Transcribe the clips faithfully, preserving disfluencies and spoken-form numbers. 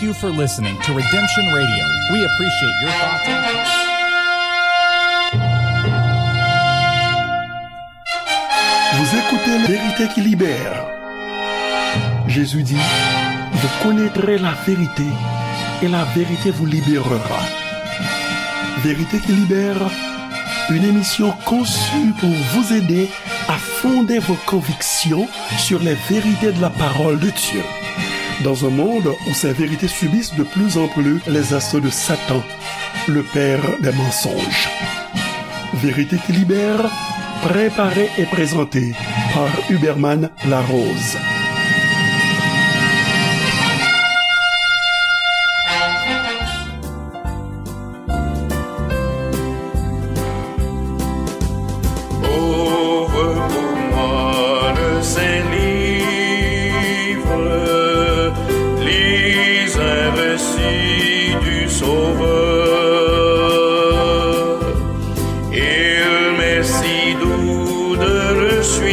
you for listening to Redemption Radio. We appreciate your thoughts and comments. Vous écoutez La Vérité qui libère. Jésus dit, vous connaîtrez la vérité et la vérité vous libérera. Vérité qui libère, une émission conçue pour vous aider à fonder vos convictions sur les vérités de la parole de Dieu. Dans un monde où ces vérités subissent de plus en plus les assauts de Satan, le père des mensonges. Vérité qui libère, préparée et présentée par Huberman Larose. Ouvre pour moi le Saint-Livre, lis un récit du Sauveur. Il m'est si doux de le suivre,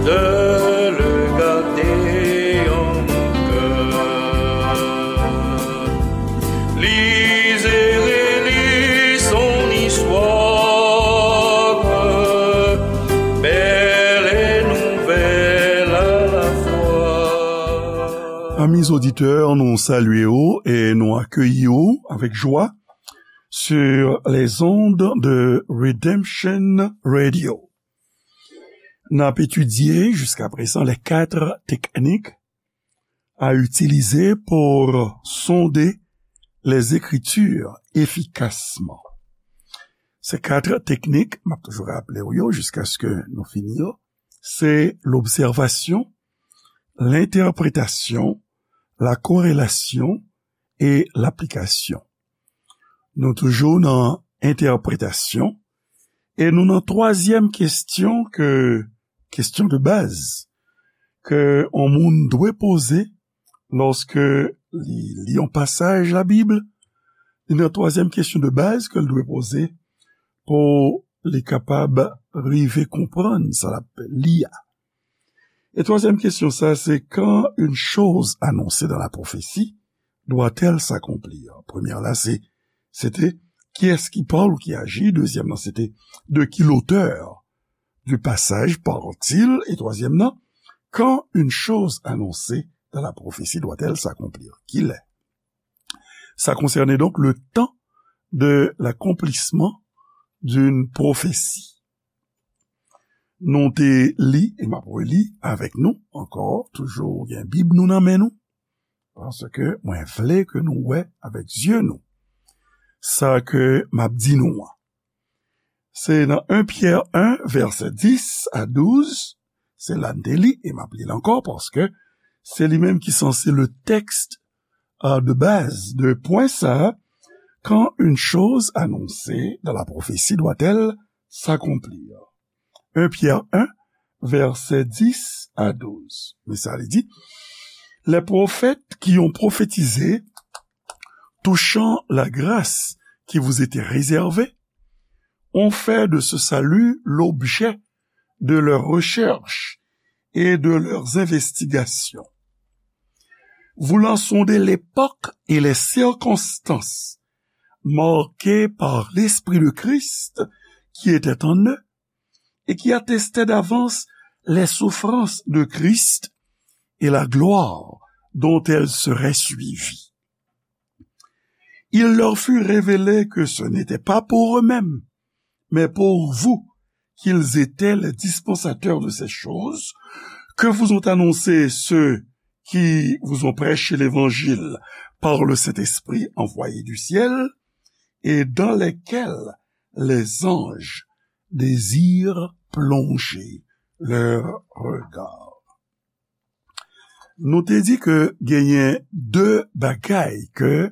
de le garder en mon cœur. Lis et relis son histoire, belle et nouvelle à la fois. Amis auditeurs, nou salye w e nou akeyi w avèk jwa sur les ondes de Redemption Radio. N ap etidye jiska prezan les quatre techniques à utiliser pour sonder les Écritures efficacement. Se kat teknik, m ap toujou raple w yo jiskaske nou fini yo, se lobsèvasyon, lentèpretasyon, la korelasyon e laplikasyon. Nou toujou nan entèpretasyon e nou nan twazyèm kesyon ke, kesyon de baz ke yon moun dwe poze lòske li li yon pasaj Labib. Li nan twazyèm kesyon de baz ke l dwe poze pou li kapab rive konprann sa l ap li a. E twazyèm kesyon sa, se, quand une chose annoncée dans la prophétie doit-elle s'accomplir? Premyè la, se, se te, qui est-ce qui parle ou qui agit? Dezyèm nan, se te, de qui l'auteur du passage parle-t-il? E twazyèm nan, quand une chose annoncée dans la prophétie doit-elle s'accomplir? Kilè? Ça concernait donc le temps de l'accomplissement d'une prophétie. Nou te li, e m ap reli avèk nou ankò, toujou gen Bib nou nan men nou, paske mwen vle ke nou wè avèk zye nou sa ke m ap di nou an. Se nan un Pyè en, vèsè dis a douz, se la n te li, e m ap li l ankò, paske se li menm ki sanse le texte, euh, de base de pwen sa, quand une chose annoncée dans la prophétie doit-elle s'accomplir? Un Pyè en, vèsè dis a douz. Men sa li di, les prophètes qui ont prophétisé touchant la grâce qui vous était réservée ont fait de ce salut l'objet de leurs recherches et de leurs investigations. Voulant sonder l'époque et les circonstances marquées par l'Esprit de Christ qui était en eux et qui attestaient d'avance les souffrances de Christ et la gloire dont elles seraient suivies. Il leur fut révélé que ce n'était pas pour eux-mêmes, mais pour vous qu'ils étaient les dispensateurs de ces choses, que vous ont annoncées ceux qui vous ont prêché l'évangile par le Saint-Esprit envoyé du ciel, et dans lesquels les anges désirent plonger leur regard. Nou te di ke genyen de bagay ke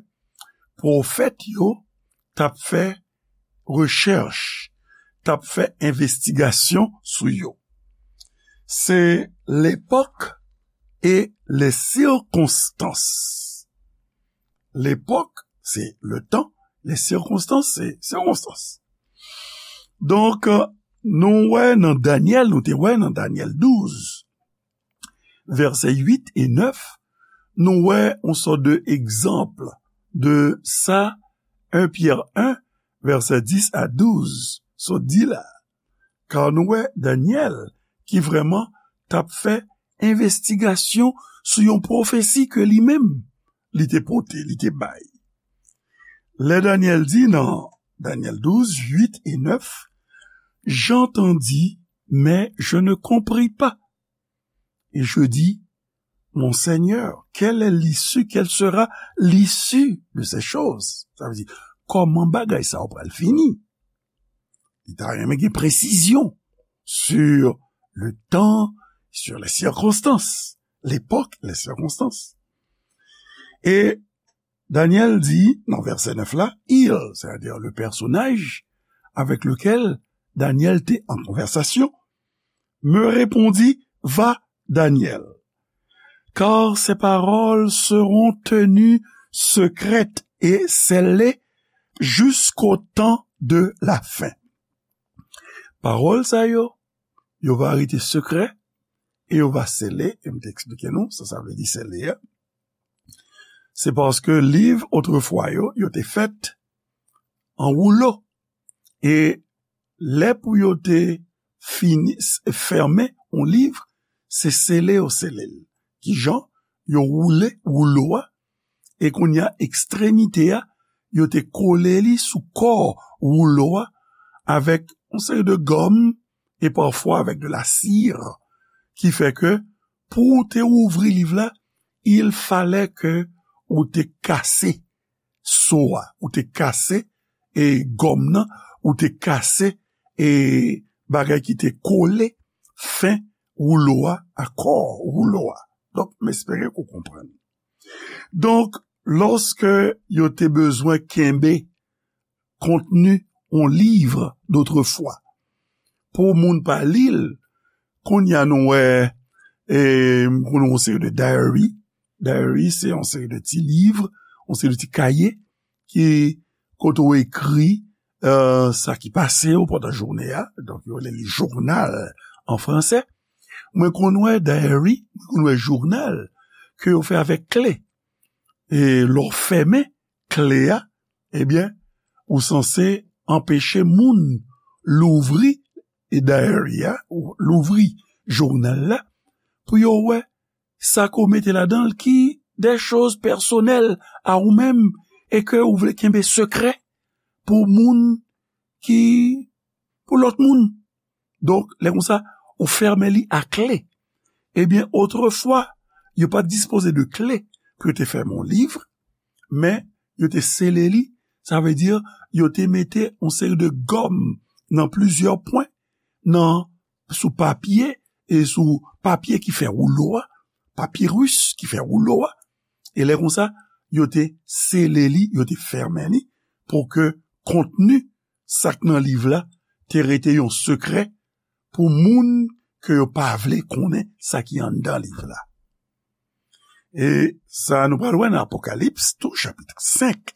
pwofèt yo t ap fè rechèch, t ap fè envestigasyon sou yo. Se l'époque et les circonstances. L'époque, c'est le temps. Les circonstances, c'est circonstances. Donk, nou wè nan Danyèl, nou te wè nan Danyèl douz, vèsè uit e nèf, nou wè yon sòt de egzanp de sa en Pyè en, vèsè dis a douz, sot di la. Ka nou wè Danyèl ki vrèman t ap fè envestigasyon sou yon pwofesi ke li menm li te pote, li te bay. Lè Danyèl di nan Danyèl douz, uit e nèf, j'entendis, mais je ne compris pas. Et je dis, mon Seigneur, quelle est l'issue, quelle sera l'issue de ces choses? Sa vle di, kòman bagay sa yo pral fini? Li ta renmen gen presizyon sur le temps, sur les circonstances, l'époque, les circonstances. E Danyèl di, nan vèsè nèf la, il, c'est-à-dire le personnage avec lequel Danyèl te an konvèsasyon, me répondit, va, Daniel, car ces paroles seront tenues secrètes et scellées jusqu'au temps de la fin. Pawòl sa yo, yo va rete sekrè e yo va sele, e m te eksplike nou sa sa vle di sele a. Se paske liv otrefwa yo, yo te fèt an woulo. E lè pou yo te fini, s-, fèmen yon liv, se sele yo sele l. Kijan? Yo woule woulo a, e kounye a, ekstremite a, yo te kole li sou kò woulo a avèk yon seri de gòm e pafwa avèk de la sire, ki fè ke pou w te ouvri liv la, il fallait que ou te kase so a, ou te kase, e, gòm nan, ou te kase, e, bagay ki te kole fen woulo a, a kò woulo a. Donk, m espere ke w konprann. Donk, lòske yo te bezwen kenbe kontni yon liv dotrefwa, pou moun pa li l, kounye a nou wè, e, m konnen yon seri de diary. Diary, se yon seri de ti liv, yon seri de ti kaye ki, kote w ekri, e, sa ki pase w pandan jounen an. Donk, yo rele li jounal an fransè. Mwen konn wè diary, mwen konn wè jounal ke yo fè avèk kle. E lè w fèmen kle a, ebyen, ou sanse anpeche moun louvri diary a, ou louvri jounal la, pou yo wè sa ke w mete ladan l ki de choz pèsonèl a ou menm e ke ou vle kenbe sekrè pou moun ki, pou lòt moun. Donk, lè konsa, ou fèmen li a kle. Ebyen, otrefwa, yo pa t dispoze de kle pou yo te fèmen yon liv, men yo te sele li, sa vle di, yo te mete yon seri de gòm nan plizyè pwen, nan, sou papye, e sou papye ki fè woulo a, papiris ki fè woulo a, e lè konsa, yo te sele li, yo te fèmen li, pou ke kontni sa k nan liv la te rete yon sekrè pou moun ke yo pa vle konnen sa ki anndan liv la. E sa nou pral wè nan Apokalips tou, chapit senk,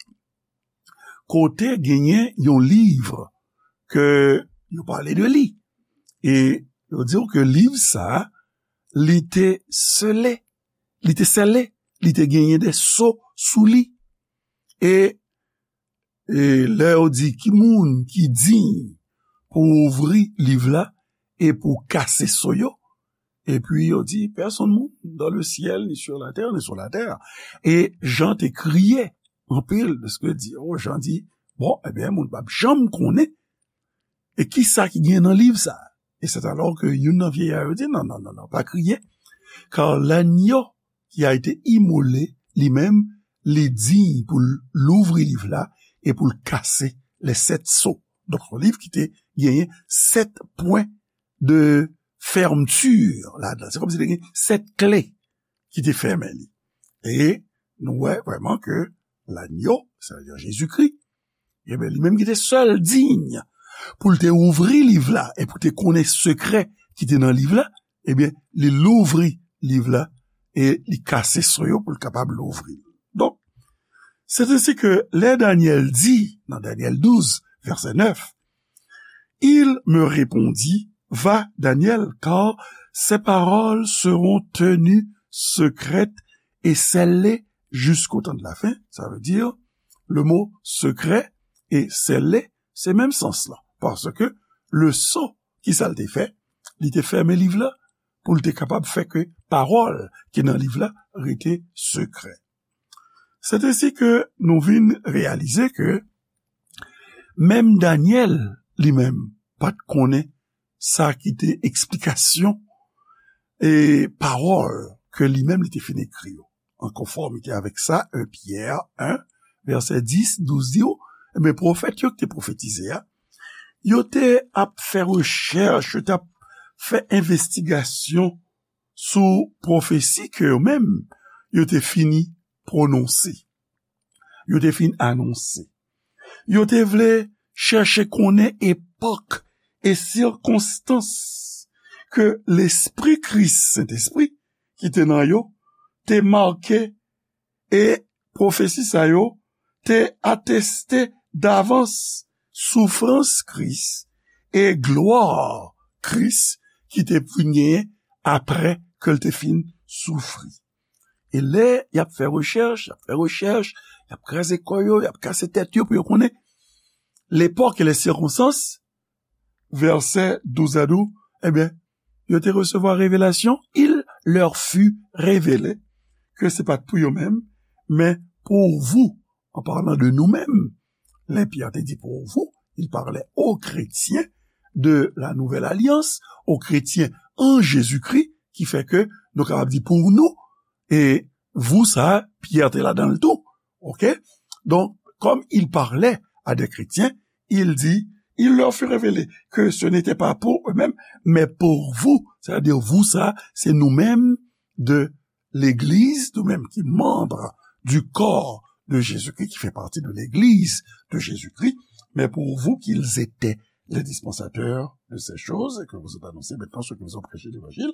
kote genyen yon liv ke yo pale de li. E yo di w ke liv sa a, li te sele, li te sele, li te genyen de so sou li. E, e lè yo di ki moun ki diy pou ouvri liv la e pou kase so yo, epi yo di, personne moun dans le ciel, ni sur la terre, ni sur la terre. E Jan te kriye anpil, paske di, oh, Jan di, bon, ebyen, moun p ap janm konnen e kisa ki gen nan liv sa. E c'est alors que youn nan vieillard yo di, non, non, non, non, pa kriye, car l'agneau qui a été immolé, li menm, li diy pou l louvri liv la e pou l kase les sept sceaux. Donk, se yon liv ki te genyen sèt pwen de fèmti ladan. Se kòmsi te gen sèt kle ki te fèmen li. E nou wè vrèman ke lagno, sa vle di Jezikri, ebyen, li menm ki te sèl diy pou l te ouvri liv la e pou te konnen sekrè ki te nan liv la, ebyen, li louvri liv la e li kase so yo pou l kapab louvri l. Donk, c'est ainsi que lè Danyèl di, nan Danyèl douz, vèsè nèf, il me répondit, va, Daniel, car Ces paroles seront tenues secrètes et scellées jusqu'au temps de la fin. Ça veut dire, le mot secret et scellé, se menm sans lan. Paske leson ki sa l te fè, li te fèmen liv la pou l te kapab fè ke pawòl ki nan liv la rete sekrè. Se te si ke nou vin reyalize ke menm Danyèl li menm pa t konnen sa ki te eksplikasyon e pawòl ke li menm li te fin ekri yo. An konfòmite avèk sa, en Pyè en, vèsè dis, douz di w, men pwofèt yo ki te pwofetize a, yo te ap fè rechèch, yo t ap fè envestigasyon sou pwofesi ke yo menm yo te fini pwononse, yo te fin anonse. Yo te vle chèche konnen epòk e sikonstans ke Lespri Kris, Sentespri, ki te nan yo, te make e pwofesi sa yo te ateste davans soufrans Kris e glwa Kris ki te vin genyen apre ke l te fin soufri. E lè y ap fè rechèch, y ap fè rechèch, y ap kraze kò yo, y ap kase tèt yo pou yo konnen lepòk e lè sikonstans, vèsè douz a di w, ebyen, yo te resevwa revelasyon, il leur fut révélé, ke se pa t pou yo menm, men pour vous, en parlant de nous-mêmes. Lè Pyè te di pour vous, il parlait aux chrétiens de la nouvelle alliance, aux chrétiens en Jésus-Christ, ki fè ke nou kapab di pour nous, e vous sa, Pyè te ladan l tou. Ok? Donc, comme il parlait à des chrétiens, il dit, il leur fut révélé que ce n'était pas pour eux-mêmes, mais pour vous. C'est-à-dire, vous sa, c'est nous-mêmes de l'Église, nous-mêmes qui membres du corps de Jésus-Christ, qui fait partie de l'Église de Jésus-Christ, mais pour vous qu'ils étaient les dispensateurs de ces choses, et que vous êtes annoncés maintenant ceux qui vous ont prêché l'Évangile,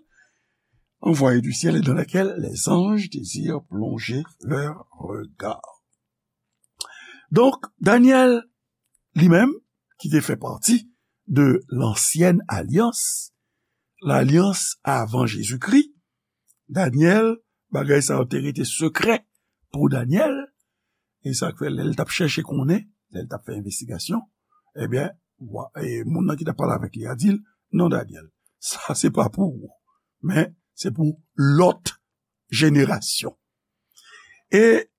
envoyés du ciel et dans laquelle les anges désirent plonger leur regard. Donk, Danyèl, li menm, ki te fè pati de lansyèn alyans, lalyans avan Jezikri, Danyèl, bagay sa yo te rete sekrè pou Danyèl, e sa k fè lè l t ap chèche konnen, lè l t ap fè envestigasyon, ebyen, wa, e moun nan ki t ap pale avèk li a di l, "Non, Danyèl, sa se pa pou ou, men se pou lòt jenerasyon." E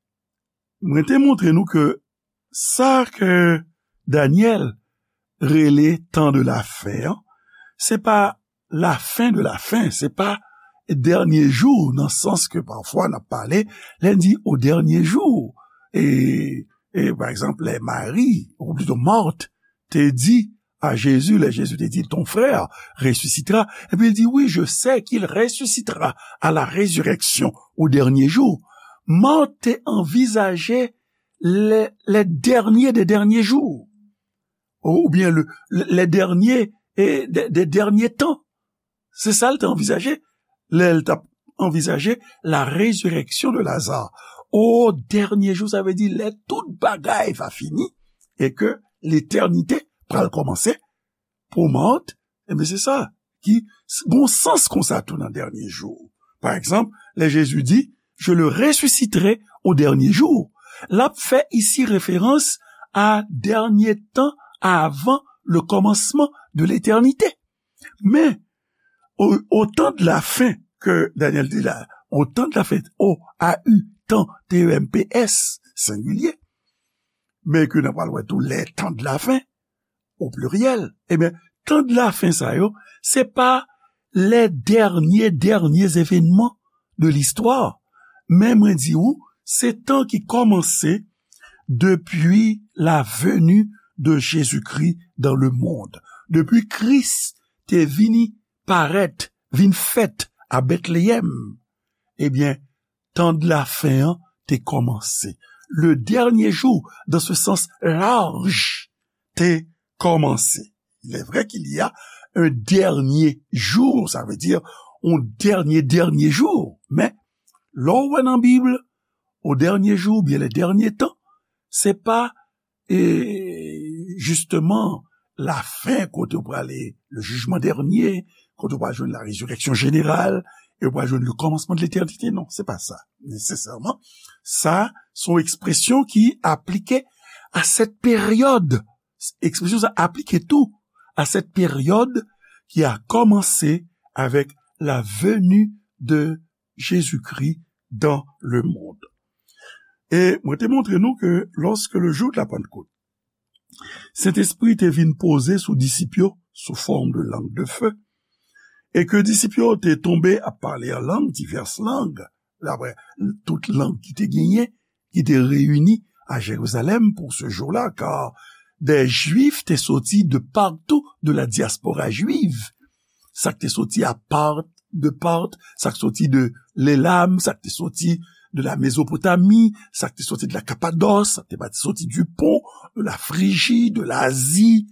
mwen te montre nou ke sa ke Danyèl rele tan de la fen an, se pa lafen de lafen, se pa dènye jou, nan sans ke pafwa n ap pale, lè n di o dènye jou, e, e pa egzanp, lè Mari, ou plito Mart, te di a Jezi, lè Jezi te di, "Ton frère ressuscitera," epi l di, "Oui, je sais qu'il ressuscitera à la résurrection au dernier jour." Mart te anvizaje le, le dernier des derniers jours, ou, oubyen le, le, le dernier, e, de, de dènye tan. Se sa l te anvizaje lè l t ap anvizaje la résurrection de Lazare. O dènye jou, sa vle di lè tout bagay va fini e ke letènite pral kòmanse pou Mart, ebyen, se sa ki s-, gon sans konsa tou nan dènye jou. Pa egzanp, lè Jezi di, "Je le ressusciterai au dernier jour," l ap fè isi referans a dènye tan avan le commencement de l'éternité. Men, au, au temps de la fin ke Danyèl di la, au temps de la fin, O A U, tan, T E M P S, sengilye, men ke n ap pral wè tou, les temps de la fin, o pliryèl, ebyen, tan de la fen sa yo, se pa lè dènye, dènye evènman de listwa. Men mwen di ou, se tan ki kòmanse depi la venue de Jésus-Christ dans le monde. Depi Kris te vini parèt, vin fèt a Betleyèm, ebyen, tan de la fen an te kòmanse. Le dernier jour, dans ce sens large, te kòmanse. Il est vrai qu'il y a un dernier jour, sa vle di yon dènye, dènye jou. Men, lè w wè nan Bib, o dènye jou, oubyen le dernier temps, se pa, e, jisteman, lafen, kote w prale, le jugement dernier, kote w pral jwenn la résurrection générale, e w pral jwenn le commencement de l'éternité. Non, se pa sa, nesesèman. Sa, se yon ekspresyon ki aplike à cette période. Ekspresyon sa aplike tou à cette période qui a commencé avec la venue de Jésus-Christ dans le monde. E mwen te montre nou ke lorsque le jour de la Pentecôte, Sentespri te vin poze sou disip yo sou fòm de lang de fe, e ke disip yo te tonbe ap pale an lang, divès lang, daprè tout lang ki te genyen, ki te reyini a Jérusalem pour ce jour-là, car des Juifs te soti de partout de la diaspora juive. Sa k te soti a Part, de Part, sa k soti de Lelam, sa k te soti de la Mezopotami, sa k te soti de la Kapadòs, sa k te soti du Pont, de la Friji, de Lazi,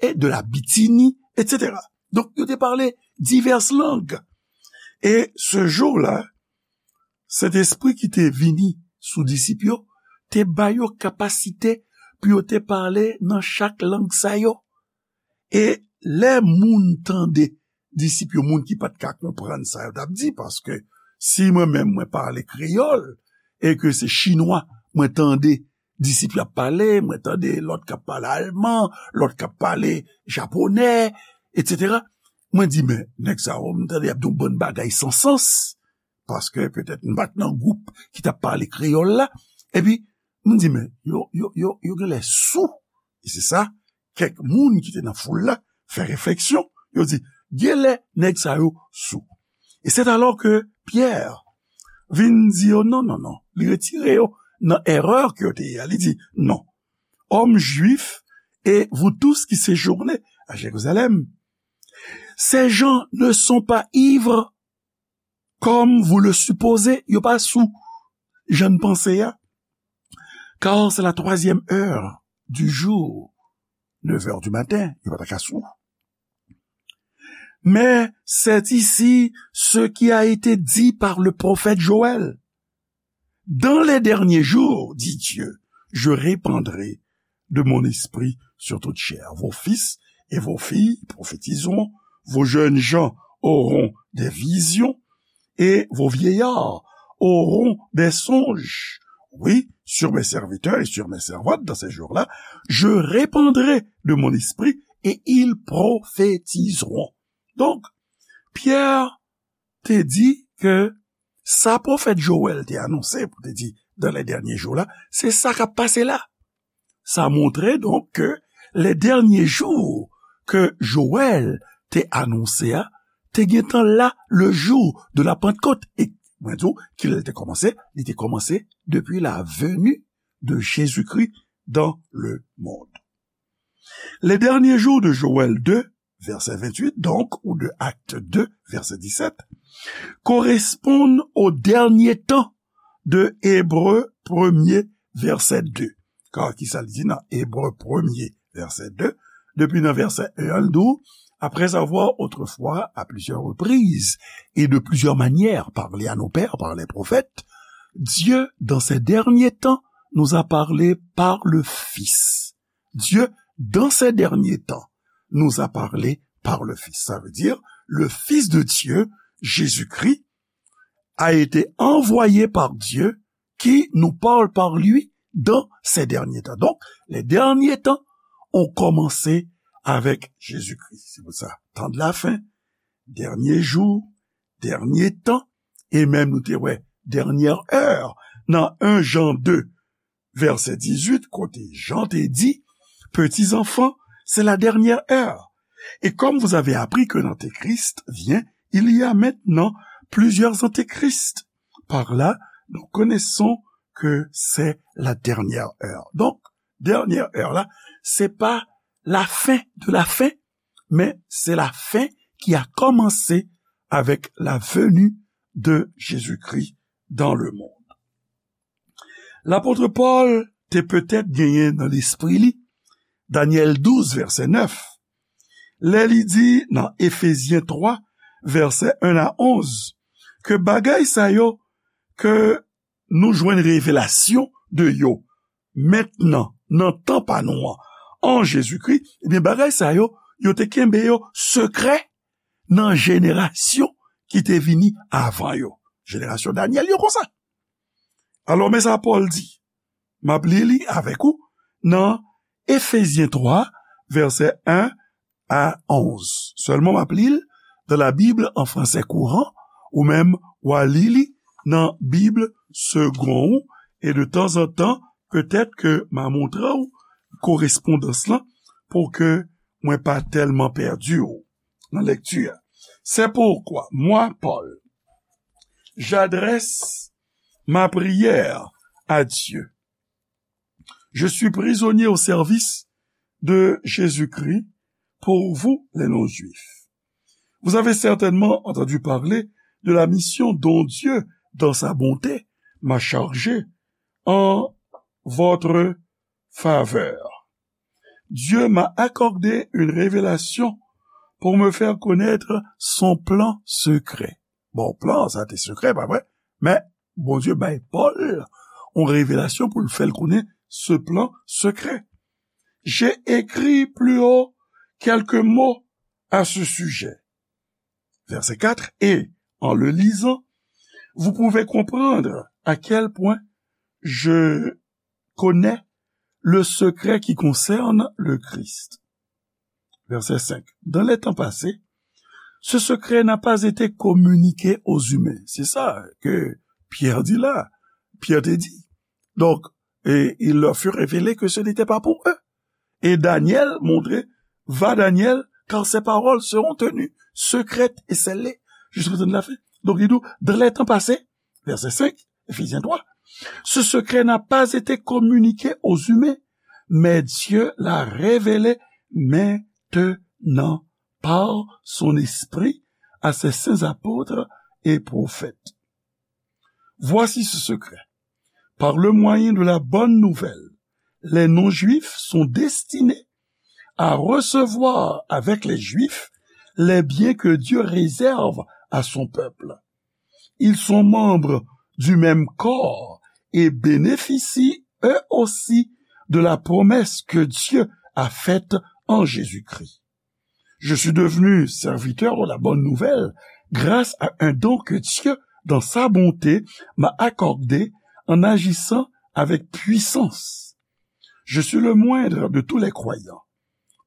e de la Bitini, et cetera. Donk, yo te pale divès lang. E ce jour-là, Sentespri ki te vini sou disip yo, te ba yo kapasite pou yo te pale nan chak lang sa yo. E lè moun tande, disip yo, moun ki pa t ka konprann sa yo t ap di, paske si mwen menm mwen pale kreyòl, e ke se chinwa mwen tande disip yo ap pale, mwen tande lòt k ap pale alman, lòt k ap pale japonè, et cetera. Mwen di, men, nèg sa yo, m tande y ap di yon bann bagay san sans, paske petèt m pa t nan gwoup ki t ap pale kreyòl la. Epi, m di, men, yo, yo, yo, yo genlè sou. E se sa, kèk moun ki te nan foul la fè refleksyon. Yo di, genlè nèg sa yo sou. Et c'est alors que Pierre vin di yo, non, non, non. Li retire yo nan erè ke yo te ye a. Li di, non. Hommes juifs et vous tous qui séjournez à Jérusalem, ces gens ne sont pas ivres comme vous le supposez. Yo pa sou jan n panse a. Car c'est la troisième heure du jour, neuf heures du matin, yo pa ta ka sou. Mais c'est ici ce qui a été dit par le prophète Joël. Dans les derniers jours, dit Dieu, je répandrai de mon esprit sur toute chair. Vos fils et vos filles prophétiseront, vos jeunes gens auront des visions et vos vieillards auront des songes. Oui, sur mes serviteurs et sur mes servantes dans ces jours-là, je répandrai de mon esprit et ils prophétiseront. Donk, Pyè te di ke sa pwofèt Jowèl te anonse, pou te di, dans les derniers jours là, se sa k ap pase la. Sa montre, donk, ke les derniers jours ke Jowèl te anonse a, te gentan la le jour de la Pentecôte. E mwen di w, kilè l te kòmanse? Li te kòmanse depuis la venue de Jésus-Christ dans le monde. Les derniers jours de Joël deux, verset vingt-huit, donc, ou de Actes deux, verset dix-sept, correspondent au dernier temps de Hébreux premier, verset deux. Kar ki sa l di nan Ebre premye, vèsè de? Depi nan vèsè en an, l di w, après avoir autrefois, à plusieurs reprises et de plusieurs manières, parlé à nos pères par les prophètes, Dieu, dans ces derniers temps, nous a parlé par le Fils. Dieu, dans ces derniers temps, nous a parlé par le Fils. Ça veut dire, le Fils de Dieu, Jésus-Christ, a été envoyé par Dieu, qui nous parle par lui dans ces derniers temps. Donc, les derniers temps ont commencé avec Jésus-Christ. Se pou sa, tan de la fen, dènye jou, dènye tan, e menm nou te wè, dènyè è, nan en Jan de, vèsè dizuit, kote Jan te di, petits enfants, c'est la dernière heure. Et comme vous avez appris qu'un antéchrist vient, il y a maintenant plusieurs antéchrists. Par là, nous connaissons que c'est la dernière heure. Donk, dènyè è la, se pa la fin de la fin, men se la fin ki a kòmanse avec la venue de Jésus-Christ dans le monde. Lapot Pòl te petèt genyen nan lespri li Danyèl douz, vèsè nèf, lè li di nan Efezyen twa, vèsè en a onz, ke bagay sa yo ke nou jwenn revelasyon de yo mentnan, nan tan pa nou an, an Jezikri, ebyen, bagay sa yo, yo te kenbe yo sekrè nan jenerasyon ki te vini avan yo. Jenerasyon Danyèl yo konsa. Alò, men sa Pòl di. M ap li li avèk ou nan Efezyen twa, vèsè en a onz. Sèlman, m ap li l dans la Bible en français courant, ou menm w a li li nan Bib segon ou, e de tanzantan, petèt ke m a montre w korespondans lan pou ke mwen pa tèlman pèdi w nan lèkti a. C'est pourquoi moi, Paul, j'adresse ma prière à Dieu. Je suis prisonnier au service de Jésus-Christ pour vous, les non-juifs. Vous avez certainement entendu parler de la mission dont Dieu, dans sa bonté, m'a chargé en votre faveur. Dieu m'a accordé une révélation pour me faire connaître son plan secret. Bon, plan sa te sekrè, pa vre? Men Bondye bay Pòl yon revelasyon pou l fè l konnen ce plan secret. J'ai écrit plus haut quelques mots à ce sujet. Verset quatre, et en le lisant, vous pouvez comprendre à quel point je connais le secret qui concerne le Christ. Verset cinq. Dans les temps passés, ce secret n'a pas été communiqué aux humains. C'est ça que Pierre dit là. Pierre te di. Donc, et il leur fut révélé que ce n'était pas pour eux. Et Daniel montre, va Daniel, car ses paroles seront tenues secrètes et scellées jusqu'au temps de la fin. Donc, il dit, dans les temps passés, verset cinq, Éphésiens trois, ce secret n'a pas été communiqué aux humains, mais Dieu l'a révélé maintenant par son Esprit à ses saints apôtres et prophètes. Voici ce secret. Par le moyen de la bonne nouvelle, les non-juifs sont destinés à recevoir avec les juifs les biens que Dieu réserve à son peuple. Ils sont membres du même corps et bénéficient eux aussi de la promesse que Dieu a faite en Jésus-Christ. Je suis devenu serviteur de la bonne nouvelle grâce à un don que Dieu, dans sa bonté, m'a accordé en agissant avec puissance. Je suis le moindre de tous les croyants.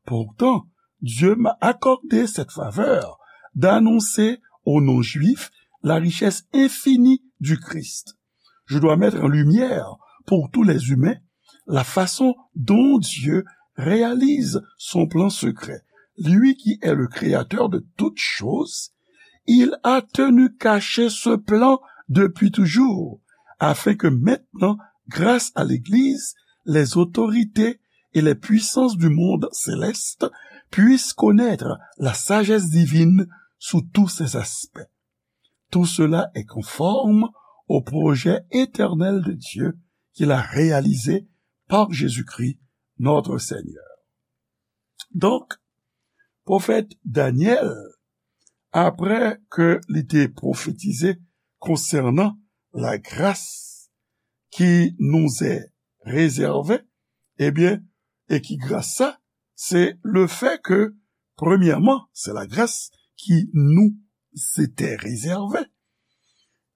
Pourtant, Dieu m'a accordé cette faveur d'annoncer aux non-juifs la richesse infinie du Christ. Je dois mettre en lumière pour tous les humains la façon dont Dieu réalise son plan secret. Lui qui est le créateur de toutes choses, il a tenu caché ce plan depuis toujours, afin que maintenant, grâce à l'Église, les autorités et les puissances du monde céleste puissent connaître la sagesse divine sous tous ses aspects. Tout cela est conforme au projet éternel de Dieu qu'il a réalisé par Jésus-Christ, notre Seigneur. Donk, pwofèt Danyèl, apre ke li te pwofetize konsènan lagras ki nous est réservée, ebyen, e ki gras sa, se le fait que, premièrement, c'est la grâce qui nous était réservée.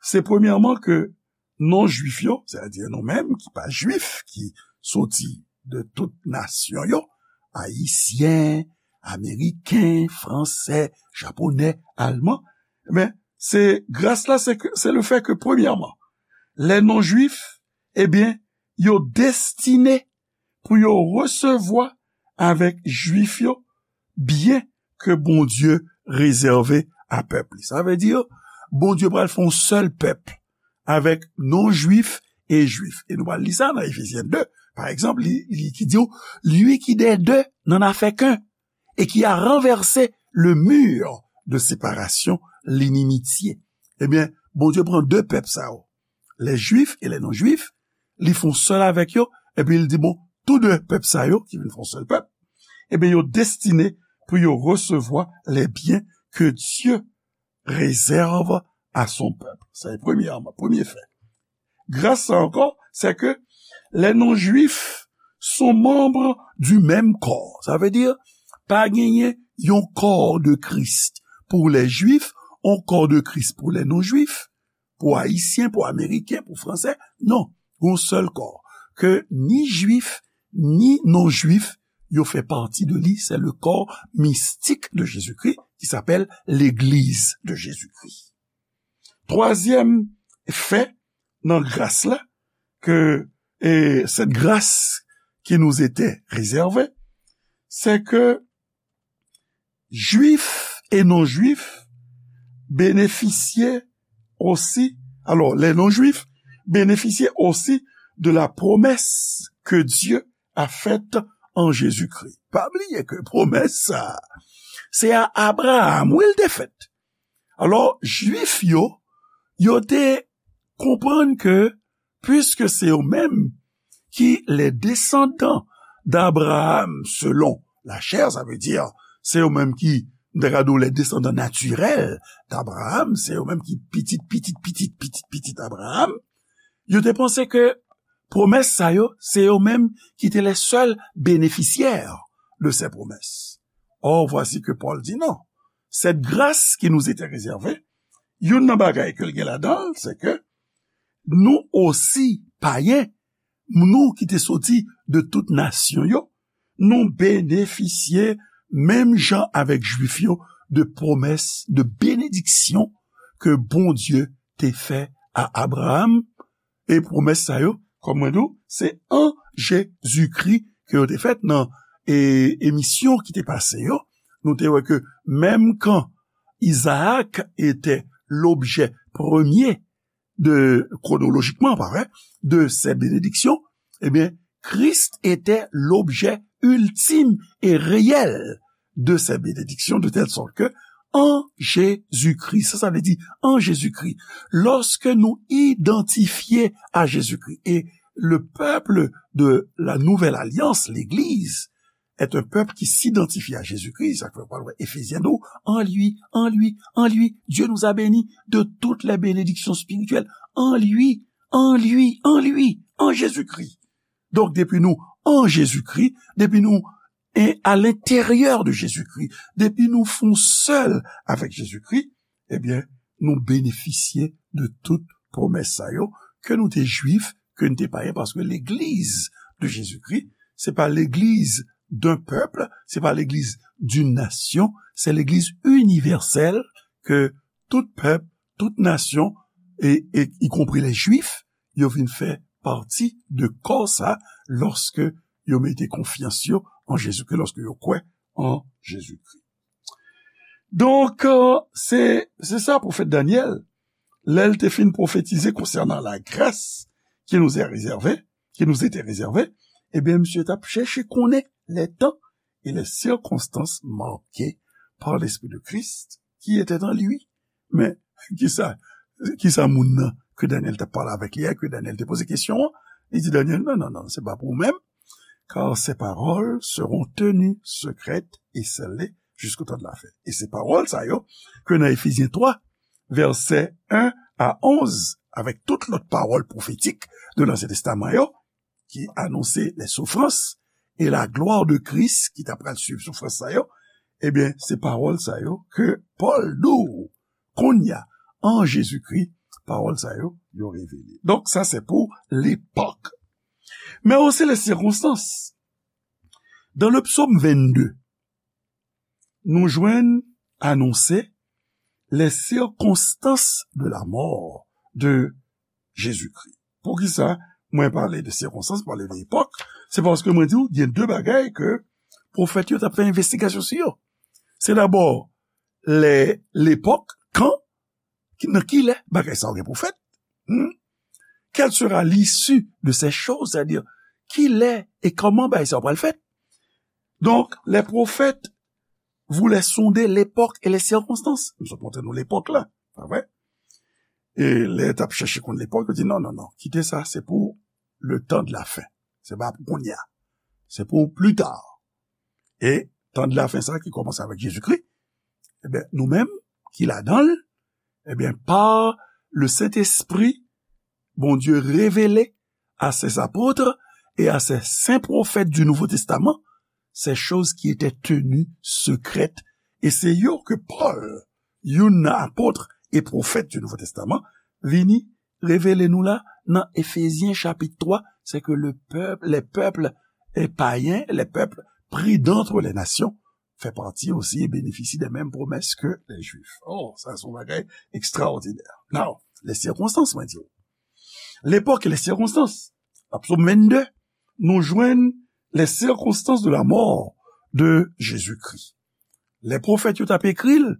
Se premyèman ke non-jwif yo, sètadi nou menm ki pa jwif, ki soti de tout nasyon yo, ayisyen, ameriken, fransè, japonè, alman, men, se gras la, se ke, se le fait que, premyèman, les non-juifs, ebyen, yo destine pou yo resevwa avèk jwif yo byen ke Bondye rezève a pèp li. Sa vle di, Bondye pral fè yon sèl pèp avèk non-jwif e jwif. E nou pral li sa nan Efezyen de, pa egzanp, li, li ki di w, lui qui des deux n'en a fait qu'un, et qui a renversé le mur de séparation, l'inimitié. Ebyen, Bondye pran de pèp sa yo, les juifs et les non-juifs, li fè yon sèl avèk yo, epi li di, bon, tou de pèp sa yo, ki vin fè yon sèl pèp, ebyen, yo destine pou yo resevwa les biens que Dieu réserve à son peuple. Sa se premyèman, premye fè. Gras sa ankò, c'est que les non-juifs sont membres du même corps. Sa vle di, pa genyen yon kò de Kris. pour les Juifs, un corps de Christ pour les non-juifs, pou Ayisyen, pou Ameriken, pou Fransè. Non, gon sèl kò. Ke ni Jwif, ni non-Jwif, yo fè pati de li. C'est le corps mystique de Jésus-Christ qui s'appelle l'Église de Jésus-Christ. Twazyèm fè nan gras la, ke, e, cette grâce qui nous était réservée, c'est que Juifs et non-juifs bénéficiaient aussi, alors les non-juifs bénéficiaient aussi de la promesse que Dieu a faite en Jésus-Christ. Pa bliye ke pwomès sa, se a Abraham wi l te fèt. Alò, Jwif yo, yo te konprann ke, puiske se yo menm ki les descendants d'Abraham selon la chair, sa vle di, se yo menm ki, m ta ka di w, les descendants naturels d'Abraham, se yo menm ki pitit, pitit, pitit, pitit, pitit Abraham, yo te panse ke pwomès sa yo, se yo menm ki te les seuls bénéficiaires de ces promesses. Or, voici que Paul dit non. Cette grâce qui nous était réservée, youn nan bagay ke l gen ladan l, se ke nou osi, payen, nou ki te soti de tout nasyon yo, nou benefisye menm jan avèk Jwif yo de pwomès, de benediksyon ke Bondye te fè a Abraham. E pwomès sa yo, kòm mwen di w, se an Jezikri ke yo te fèt. Nan, e, emisyon ki te pase yo, nou te wè ke menm kan Isaac était l'objet premier de, chronologiquement, pa vre, de ces bénédictions, eh bien, Christ était l'objet ultime et réel de ces bénédictions, de telle sorte que en Jésus-Christ, sa, sa vle di, en Jésus-Christ, lorsque nous identifiés à Jésus-Christ, et le peuple de la nouvelle alliance, l'Église, est un peuple qui s'identifie à Jésus-Christ, sa fè w pral wè Efezyen di w, en lui, en lui, en lui, Dieu nous a bénis de toutes les bénédictions spirituelles, en lui, en lui, en lui, en Jésus-Christ. Donk, depi nou an Jezikri, depi nou e, à l'intérieur de Jésus-Christ, depi nou fon sèl avèk Jezikri, ebyen, nou benefisye de tout pwomès sa yo, ke nou te Jwif, ke nou te payen, paske legliz de Jezikri, se pa legliz d'un peuple, se pa legliz d'une nation, se legliz inivèsèl ke tout pèp, tout nasyon, e, e, y compris les Juifs, yo vin fè pati de kò sa, lòske yo mete konfyans yo an Jezikri, lòske yo kwè an Jezikri. Donk, euh, se, se sa pwofèt Danyèl, lè l te fin pwofetize konsènan la grâce qui nous est réservée, qui nous était réservée, ebyen, misye t ap chèche konnen les temps et les circonstances marquées par l'Esprit de Christ qui était en lui. Men, kisa, kisa moun nan ke Danyèl t ap pale avèk li a, ke Danyèl te poze kesyon an, li di Danyèl, non, non, non, se pa pou ou menm, car ces paroles seront tenues secrètes et scellées jusqu'au temps de la fin. E se pawòl sa yo, ke nan Efezyen twa, vèsè en a onz, avèk tout lòt pawòl pwofetik de Lansyen Testaman yo, ki anonse les souffrances et la gloire de Christ, ki ta pral swiv soufrans sa yo, ebyen, se pawòl sa yo ke Pòl di w kounye a, an Jezikri, pawòl sa yo, yo revele. Donk, sa se pou lepòk. Men osi les circonstances. Dans le psaume vingt-deux, nou jwenn anonse les circonstances de la mort de Jésus-Christ. Poukisa mwen pale de sikonstans, pale de epòk? Se paske mwen di w, gen de bagay ke pwofèt yo t ap fè envestigasyon sou yo. Se dabò lè, lepòk, kan, ki, nan ki lè bagay sa yo gen pou fèt? Hmm? Quelle sera l'issue de ces choses? Sètadi, ki lè e kòman bagay sa yo pral fèt? Donk, les prophètes voulaient sonder l'époque et les circonstances. M sot montre nou lepòk la, pa vre? E lè t ap chèche konn lepòk, yo di, non, non, non, kite sa, se pou le temps de la fin. Se pa pou kounye a. Se pou pli ta. E tan de la fin sa ki kòmanse avèk Jezikri, ebyen, nou menm ki ladan l, ebyen, pa le Sentespri, Bondye revele à ses apôtres et à ses saints prophètes du Nouveau Testament ces choses qui étaient tenues secrètes. E se yo ke Pòl youn nan apot e pwofèt du Nouveau Testament, vini revele nou la nan Efezyen chapit twa, c'est que le peuple, les peuples, eh, païens, les peuples pris d'entre les nations, fè pati osi e benefisye de menm pwomès ke lè Jwif. Oh, sa se yon bagay ekstraòdinè. Now, les circonstances, mwen di w. Lepòk e les circonstances. Nan Psaume vingt-deux, nou jwenn les circonstances de la mort de Jésus-Christ. Lè pwofèt yo t ap ekri l,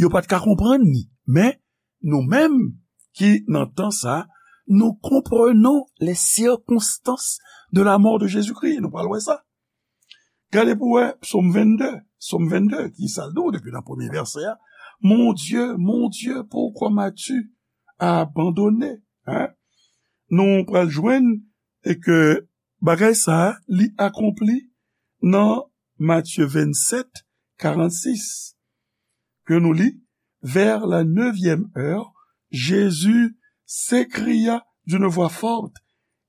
yo pa t ka konprann li. Men, nou menm ki nan tan sa, nous comprenons les circonstances de la mort de Jésus-Christ. Nou pral wè sa. Gade pou wè Psaume vingt-deux. Psaume vingt-deux, ki sa l di w depi nan premye vèsè a? Mon Dieu, mon Dieu, pourquoi m'as-tu abandonné? Hein? Nou pral jwenn e ke bagay sa a, li akonpli nan Matthieu vingt-sept, quarante-six, ke nou li, vers la neuvième heure, Jésus s'écria d'une voix forte,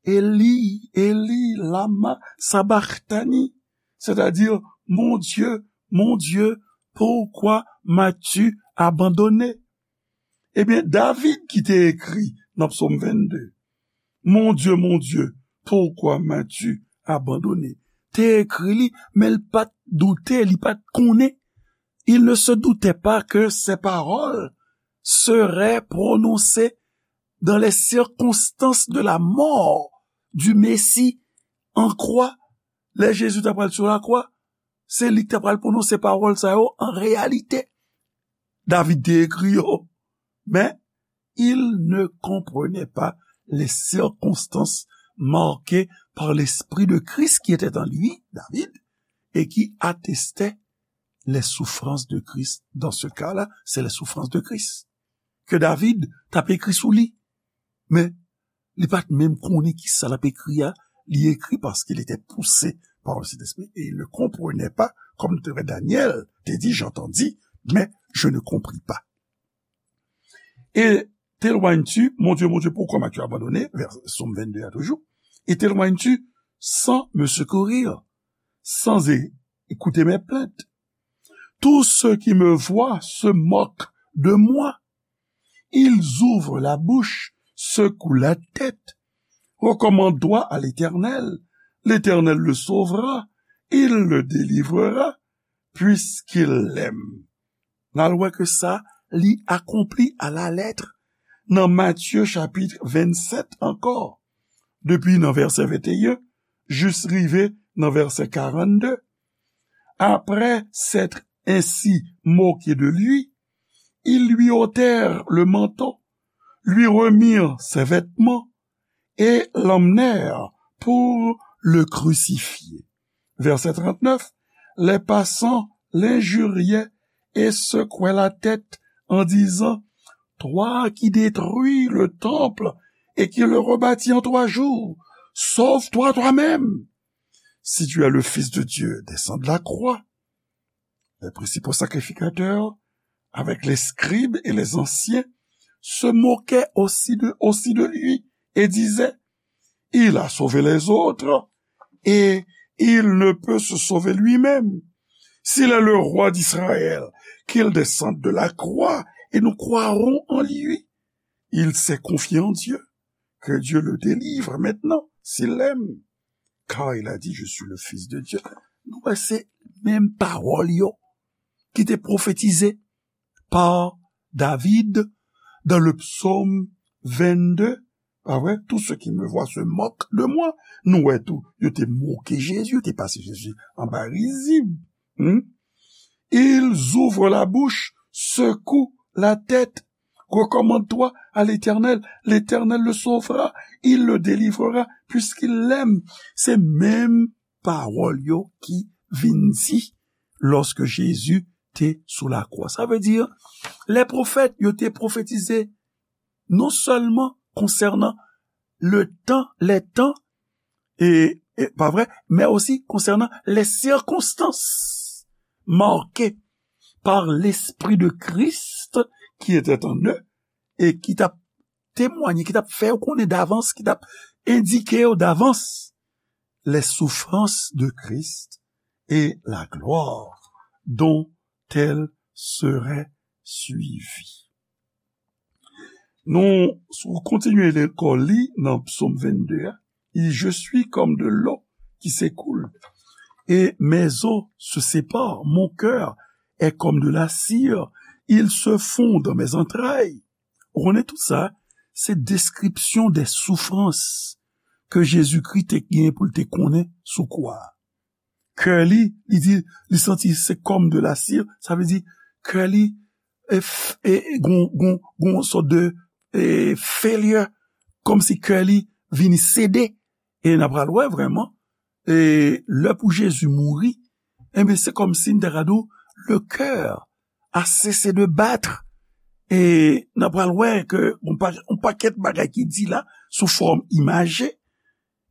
Élie, Élie, lama sabachthani? C'est-à-dire, Mon Dieu, mon Dieu, pourquoi m'as-tu abandonné? Ebyen, David ki te ekri nan Psaume vingt-deux, Mon Dieu, mon Dieu, pourquoi m'as-tu abandonné? Te ekri li, men l pa t doute, li pa t konnen. Il ne se doutait pas que ces paroles seraient prononcées dans les circonstances de la mort du Messie en croix. Lè Jezi t ap pral sou lakwa, se li ki t ap pral pwononse pawòl sa yo an reyalite. David te ekri yo, men il ne comprenait pas les circonstances marquées par l'Esprit de Christ qui était en lui, David, et qui attestait les souffrances de Christ. Dans ce cas-là, c'est les souffrances de Christ. Ke David t ap ekri sou li. Men, li pa t menm konnen ki sa l ap ekri a. Li ekri parce qu'il était poussé par le Saint-Esprit et il ne comprenait pas, comme Daniel te dit, j'entendis, mais je ne compris pas. Et t'éloignes-tu, mon Dieu, mon Dieu, pourquoi m'as-tu abandonné? Vers Psaume vingt-deux a toujou. Et t'éloignes-tu sans me secourir, sans é- écouter mes plaintes? Tous ceux qui me voient se moquent de moi. Ils ouvrent la bouche, secouent la tête. Recommande-toi à l'Éternel. L'Éternel le sauvera, il le délivrera, puisqu'il l'aime. N al wè ke sa, li akonpli à la lettre nan Matthieu chapitre vingt-sept encore, depi nan vèsè vingt et un jis rive nan vèsè quarante-deux. Après s'être ainsi moqué de lui, ils lui ôtèrent le manteau, lui remirent ses vêtements et l'emmenèrent pour le crucifier. Verset trente-neuf, les passants l'injuriaient et secouaient la tête en disant, Toi qui détruis le temple et qui le rebâtis en trois jours, sauve-toi toi-même. Si tu es le Fils de Dieu, descends de la croix. Les principaux sacrificateurs, avec les scribes et les anciens, se moquaient aussi de, aussi de lui et disaient, Il a sauvé les autres et il ne peut se sauver lui-même. S'il est le roi d'Israël, qu'il descende de la croix et nous croirons en lui. Il s'est confié en Dieu, que Dieu le délivre maintenant, s'il l'aime. Car il a dit, Je suis le Fils de Dieu. Nou wè se menm pawòl yo ki te pwofetize par David dans le psaume vingt-deux. Pa vre? Tous ceux qui me voient se moquent de moi. Nou wè tou, yo te moke Jezi, yo te pase Jezi anba rizib. Hmm? Ils ouvrent la bouche, secouent la tête. Recommande-toi à l'Éternel. L'Éternel le sauvera. Il le délivrera, puisqu'il l'aime. Se menm pawòl yo ki vin di lòske Jezi te sou lakwa. Sa vle di, lè pwofèt yo te pwofetize non sèlman konsènan le tan, les temps, e, e, pa vre, men osi konsènan les circonstances marquées par l'Esprit de Christ qui était en eux et ki t ap temwanye, ki t ap fè yo konnen davans, ki t ap endike yo davans les souffrances de Christ et la gloire dont elles seraient suivi. Nou, si w kontinye lekòl li nan Psaume vingt-deux, a, il dit, je suis comme de l'eau qui s'écoule, et mes os se séparent. Mon cœur est comme de la cire, ils se font dans mes entrailles. Ou konnen tout sa, se deskripsyon de soufrans ke Jezikri te gen pou l te konnen sou kwa a. Kè li, li di, li santi se comme de la cire, sa vle di kè li e, f- e, e gon, gon, gon sòt de e, failure, kòmsi kè li vini sede. E n ap pral wè vrèman, e lè pou Jezi mouri, enben, se kòmsi n ta ka di w, le cœur a cessé de battre. E n ap pral wè ke yon pa- yon pakèt bagay ki di la sou fòm imaje.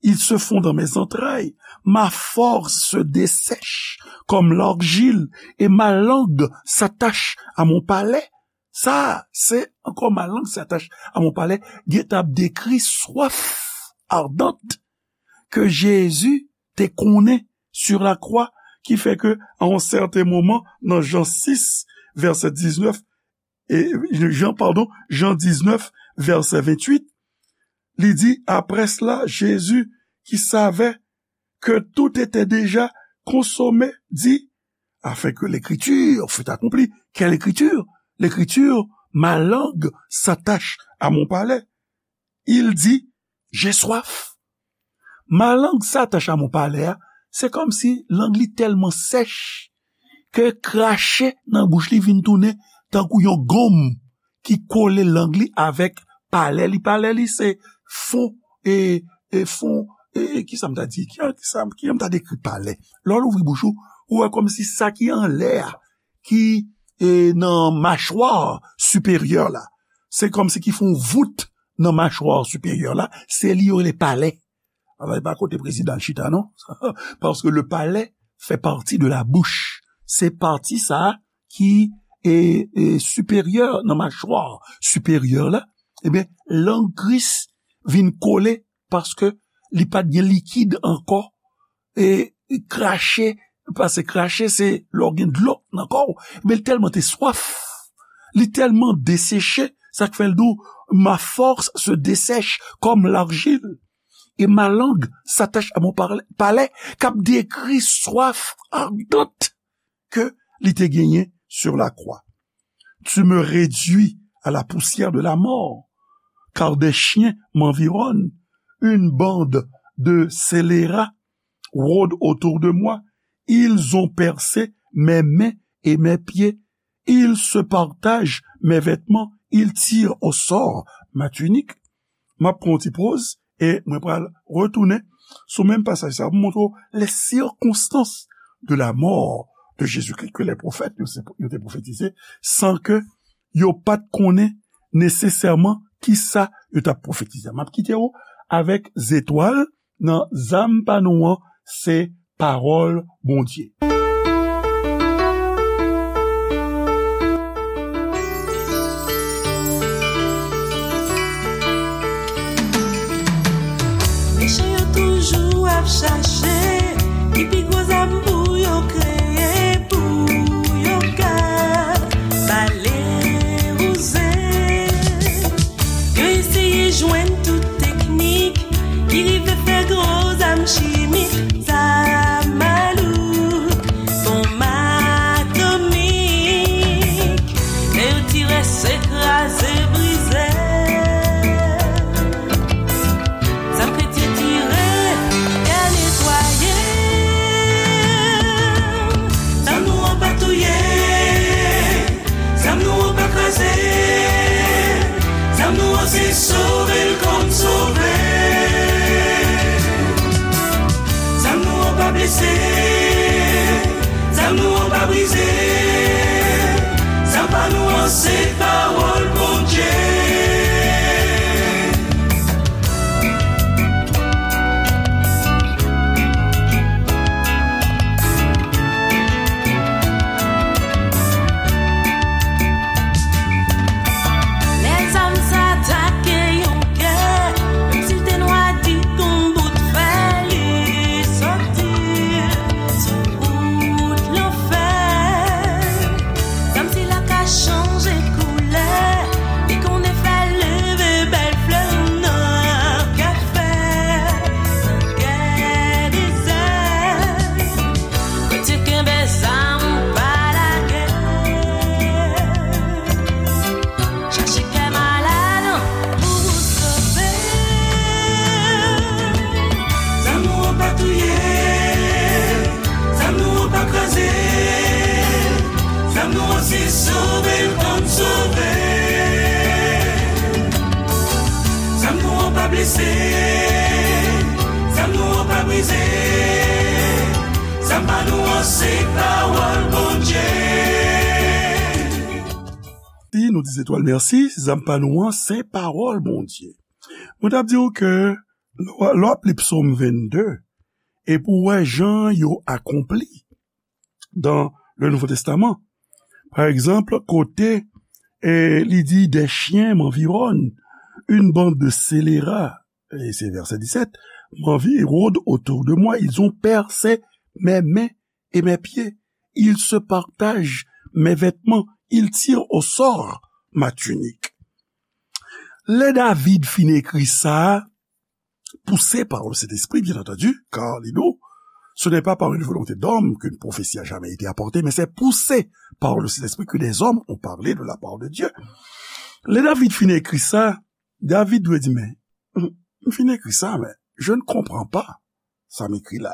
Ils se font dans mes entrailles. Ma force se dessèche comme l'argile et ma langue s'attache à mon palais. Sa, se ankò ma langue s'attache à mon palais. Gentan ap dekri swaf ardant ke Jezi te konnen sur la croix, ki fè ke, à un certain moment, nan Jan sis, vèsè diznèf, e, Jan, padon, Jan diznèf, vèsè venntuit, li di, après cela, Jésus, qui savait que tout était déjà consommé, dit, afin que l'écriture fût accomplie. Quelle écriture? L'écriture, ma langue s'attache à mon palais. Il dit, j'ai soif. Ma langue s'attache à mon palais a, se kòmsi lang li tèlman sèch ke krache nan bouch li vin tounen tankou yon gonm ki kole lang li avèk palè li. Palè li se fon, e, e fon, e, e, ki sa m ta di? Ki, ki sa, ki jan m ta dekri palè? Lè w louvri bouch ou, ou wè kòmsi sa ki anlè a, ki, e, nan machwa siperyè la, se kòmsi ki fè yon vout nan machwa siperyè la, se li yo rele palè. Alò, e pa kote prezidan chita, non. Paske le palais fait partie de la bouche. Se pati sa a ki e, e, siperyè nan machwa siperyè la. Ebyen, lang Kris vin kole paske li pa t gen likid ankò. E krache, paske krache se lè w gen dlo nan kò w. Men li tèlman te swaf, li tèlman deseche, sa k fè l di w, ma force se dessèche comme l'argile, et ma langue s'attache à mon parle- palais, k ap dekri swaf ardant ke li te genyen sur la croix. Tu me réduis à la poussière de la mort, car des chiens m'environnent, une bande de scélérats rôde autour de moi. Ils ont percé mes mains et mes pieds. Ils se partagent mes vêtements, ils tirent au sort ma tunique. M ap pran yon ti poz e mwen pral retounen sou menm pasaj sa a pou montre w les circonstances de la mort de Jésus-Christ que les prophètes yo se- yo te pwofetize san ke yo pa t konnen nesesèman kisa yo t ap pwofetize. M ap kite w avèk zetwal nan zam pa nou an, se pawòl Bondye. Mechan yo toujou ap chache ki pi gwo zam pou yo kreye, pou yo ka bale wouze. Yo eseye jwenn tout teknik ki rive fè gwo zam chimik, zam malouk, bonm atomik. Lè yo tire, se kraze, brize. Zam kretyen tire, ya netwaye. Zam nou an pa brize. Zam pa nou an se pawòl Bondye. Si nou di Zetwal mèsi, zam pa nou an se pawòl Bondye. Mwen t ap di w ke lè w ap li Psòm vennde, epi w wè jan yo akonpli dans le Nouveau Testament. Pa egzanp, kote e, li di, des chiens m'environnent, une bande de scélérats, et c'est verset dix-sept, m'environne autour de moi, ils ont percé mes mains et mes pieds, ils se partagent mes vêtements, ils tirent au sort ma tunique. Lè David fin ekri sa, poussé par le Saint-Esprit, bien entendu, car li di w, ce n'est pas par une volonté d'homme qu'une prophétie a jamais été apportée, mais c'est poussé par le Saint-Esprit que des hommes ont parlé de la part de Dieu. Lè David fin ekri sa, David dwe di, men, m fin ekri sa, men je ne comprends pas sa m ekri la.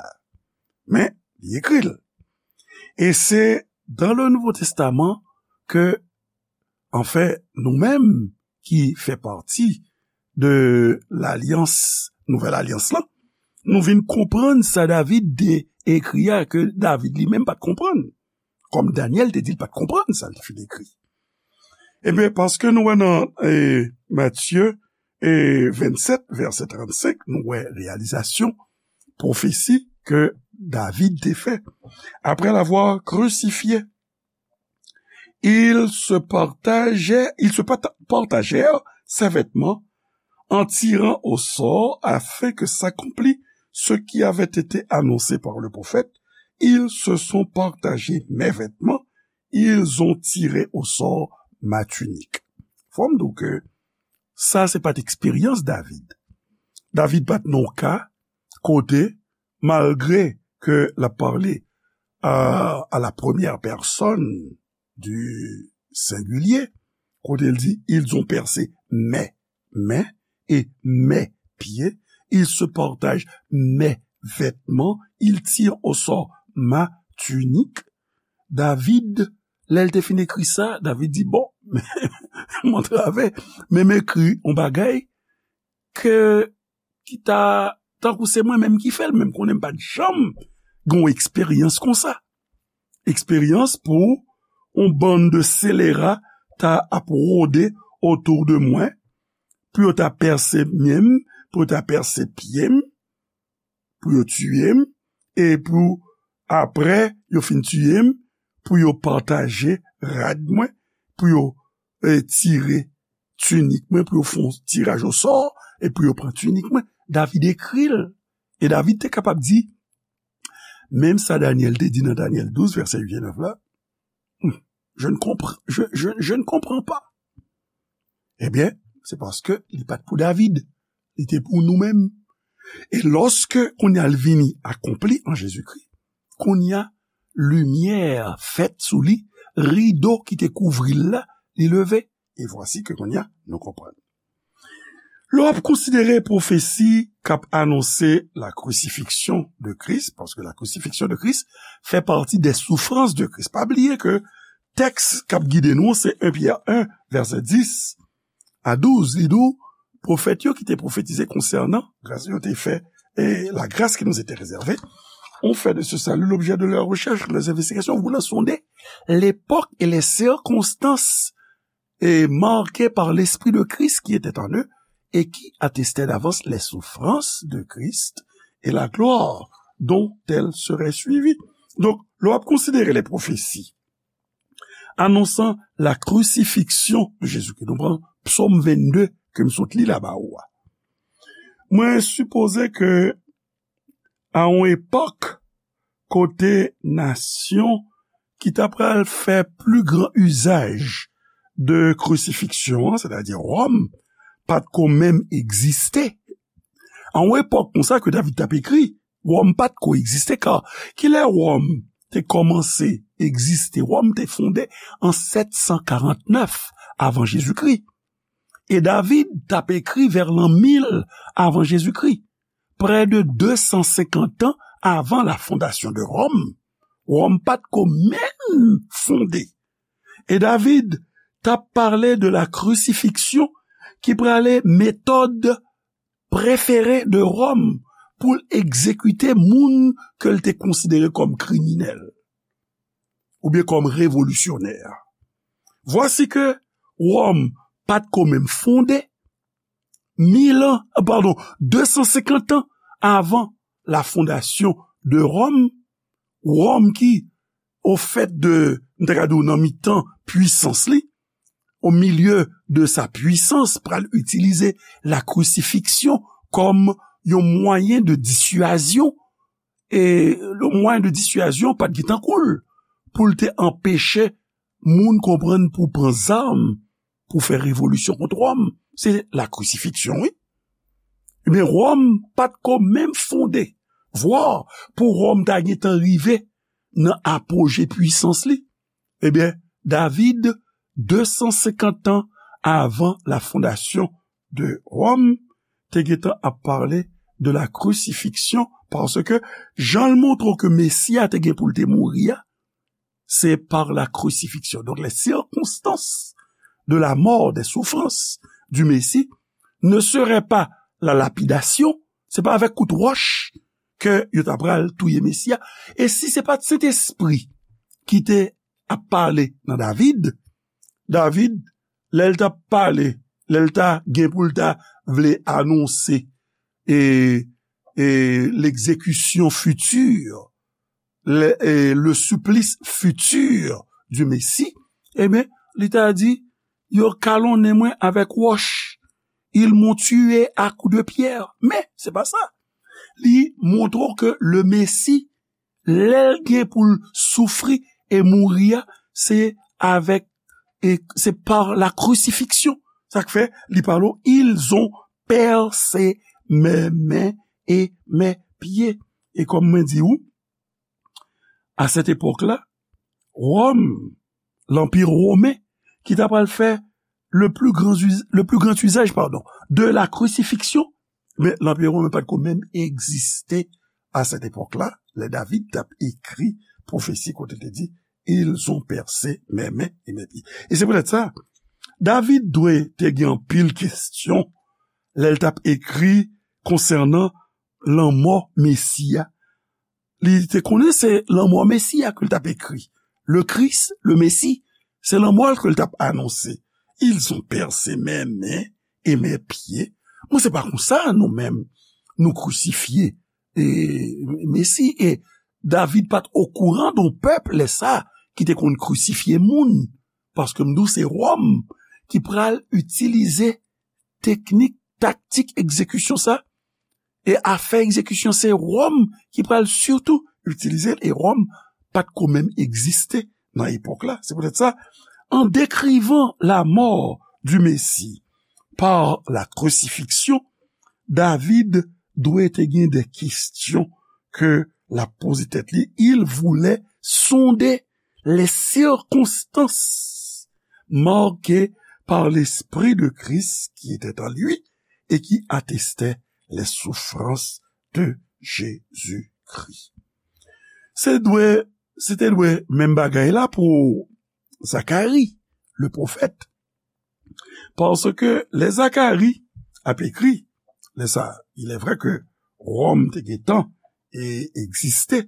Men, li ekri l. E se dans le Nouveau Testament que, anfen, nou menm ki fè pati de lalyans, nouvèl alyans lan, nou vin konprann sa David te ekri a ke David li menm pa t konprann. Kòm Danyèl te di l pa t konprann sa l te fin ekri. Ebyen, paske nou wè nan e, Matye e, vennsèt, vèsè trannsenk, nou wè reyalizasyon pwofesi ke David te fè. Après l'avoir crucifié, ils se partageaient, ils se parta- partagèrent ses vêtements en tirant au sort afin que s'accomplît ce qui avait été annoncé par le prophète, ils se sont partagé mes vêtements, ils ont tiré au sort ma tunique. Fò m di w ke sa se pa t eksperyans David. David pa t nan yon ka kote, malgre ke l ap pale à, à la première personne du singulier, kote l di, ils ont percé mes mains et mes pieds, ils se partagent mes vêtements, ils tirent au sort ma tunique. David, lè l te fin ekri sa, David di, bon, m antrave, men m ekri yon bagay ke ki ta, tankou se mwen menm ki fè l, men m konnen m pa t janm gen yon eksperyans konsa. Eksperyans pou yon bann de selera ta ap wode otou de mwen, pou yo ta pèse men m, pou yo ta pèse pye m, pou yo tiye m, e pou apre yo fin tiye m, pou yo pataje rad mwen, pou yo e, tire tinik mwen, pou yo fè yon tiraj osò, e pou yo pran tinik mwen. David ekri l. E David te kapab di, menm sa Danyèl te di nan Danyèl douz, vèsè uit e nèf la, hmm, je ne compr- je, je, je ne comprends pas. Ebyen, se paske li pa t pou David. Li te pou nou menm. E lòske kounye a l vini akonpli an Jezikri, kounye a limyè fèt sou li, rido ki te kouvri l la, li leve. E vwasi ke kounye a nou konprann. Lè w ap konsidere pwofesi k ap anonse la crucifixion de Christ, paske la crucifixion de Christ fait partie des souffrances de Christ. Pa bliye ke tèks k ap gide nou, se en Pyè en, vèsè dis a douz. Li di w, pwofèt yo ki te pwofetize konsènan gras yo te fè, et la grâce qui nous était réservée, ont fait de ce salut l'objet de leurs recherches, de leurs investigations, voulant sonder l'époque et les circonstances et marquées par l'Esprit de Christ qui était en eux et qui attestaient d'avance les souffrances de Christ et la gloire dont elles seraient suivies. Donk, lè w ap konsidere les prophéties annonçant la crucifixion de Jésus-Christ, nou pran Psòm vennde ke m sot li la ba ou a. Mwen sipoze ke a yon epòk kote nasyon ki ta pral fè pli gran izaj de krisifiksyon an, sètadi Wòm, pa t ko menm egziste. A yon epòk konsa ke David t ap ekri, Wòm pa t ko egziste, ka kilè Wòm te kòmanse egziste? Wòm te fonde an sèt san karant nèf avan Jezikri. E David t ap ekri vè lan mil avan Jezikri, prè de de san senkant an avan la fondation de Rome. Wòm pa t ko menm fonde. E David t ap pale de la crucifixion ki prale metòd prefere de Wòm pou l egzekite moun ke l te konsidere kòm kriminèl oubyen kòm revolisyonè. Vwasi ke Wòm pa t ko menm fonde, mil an, padon, de san senkant an avan la fondasyon de Wòm, Wòm ki, au fait de, m ta ka di w nan mitan pwisans li, au milieu de sa puissance, pral itilize la crucifixion kòm yon mwayen de dissuasion, e le mwayen de dissuasion pa t gen tankou l pou l te anpeche moun konprann pou pran zam pou fè revolisyon kont Wòm. Se la crucifixion, wi. Ebyen, Wòm pa t ko menm fonde. Vwa pou Wòm ta gentan rive nan apoje pwisans li. Ebyen, David, de san senkant an avan la fondasyon de Wòm, te gentan ap pale de la crucifixion, paske jan l montre ke Mesi a te gen pou l te mouri a, c'est par la crucifixion. Donc, les circonstances de la mort, des souffrances du Messie ne seraient pas la lapidation, se pa avèk kout wòch ke yo ta pral touye Mesi a. E si se pa t Sentespri ki te ap pale nan David, David, lè l t ap pale, lè l ta gen pou l ta vle anonse e, e l'exécution future, le, e le supplice futur du Messie, ebyen, li ta di, yo kalonnen mwen avèk wòch. Ils m'ont tué à coups de pierre. Men, se pa sa. Li montre w ke le Messie, lè l gen pou l soufri e mouri a, se avèk, e se par la crucifixion. Sa k fè, li pale w, ils ont percé mes mains et mes pieds. E kòm mwen di w, à cette époque-là, Wòm, l'Empire romain, ki ta pral fè le plus grand us-, le plus grand usage, pardon, de la crucifixion, men l'Empire romain pa t ko menm egziste à cette époque-là, lè David t ap ekri pwofesi kote l te di, ils ont percé mes mains et mes pieds. E se poutèt sa, David dwe te gen anpil kesyon lè l t ap ekri konsènan lanmò Mesi a. Li te konnen se lanmò Mesi a ke l t ap ekri. Le Christ, le Messie, se lanmò l ke l t ap anonse. Ils ont percé mes mains et mes pieds. Mwen, se pa konsa nou menm nou krisifye e, Mesi. E David pa t okouran de yon pèp lè sa ki te konn krisifye moun. Paske m di w se Wòm ki pral itilize teknik, taktik egzekisyon sa. E afè egzekisyon, se Wòm ki pral sitou itilize l, e Wòm pa t ko menm egziste nan epòk la. Se poutèt sa, en décrivant la mort du Messie par la crucifixion, David dwe te gen de kesyon ke l ap poze tèt li. Il voulait sonder les circonstances marquées par l'Esprit de Christ qui était en lui et qui attestait les souffrances de Jésus-Christ. Se dwe, se te dwe menm bagay la pou Zakari, le pwofèt. Paske lè Zakari ap ekri, lè sa, il est vrai que Wòm te gentan e egziste,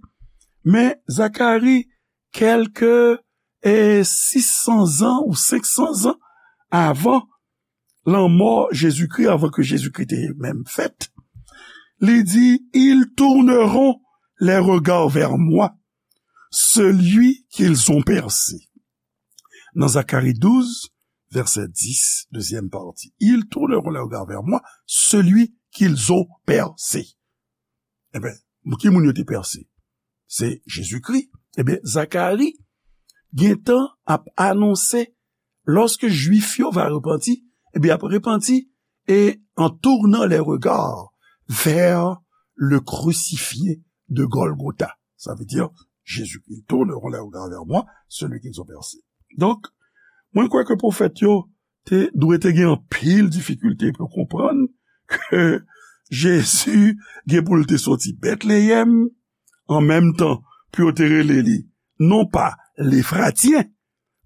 men Zakari, kèlke e sis san zan ou senk san zan avan lanmò Jezikri, avan ke Jezikri te menm fèt, li di, ils tourneront les regards vers moi, celui qu'ils ont percé. Nan Zakari douz, vèsè dis, dezyèm pati. Ils tourneront les regards vers moi, celui qu'ils ont percé. Ebyen, ki moun yo te pèse? Se Jezikri. Ebyen, Zakari gentan ap anonse, lorsque Juif yo va repanti, ebyen, ap repanti, et en tournant les regards vers le crucifié de Golgotha. Ça veut dire, Jésus, ils tourneront les regards vers moi, celui qu'ils ont percé. Donk, mwen kwè ke pwofèt yo te dwe te gen anpil difikilte pou konprann ke Jezi gen pou l te soti Betleyèm, an menm tan pou yo te rele li, non pa Lefratyen,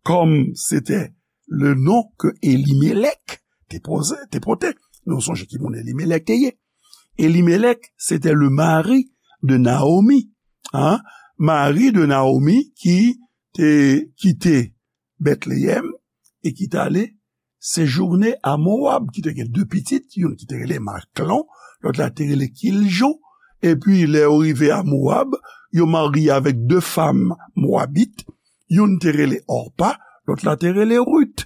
kòm se te le non ke Elimelèk te poze, te pote. Nou sonje ki moun Elimelèk te ye. Elimelèk, c'était le mari de Naomi, hein, mari de Naomi ki te kite Bètleyèm e ki t ale sejounen a Mowab, ki te gen de pitit, youn ki te rele Maklon, lòt la te rele Kiljon. Epi, lè yo rive a Mowab, yo marye avèk de fanm mowabit, youn te rele Òpa, lòt la te rele Rit.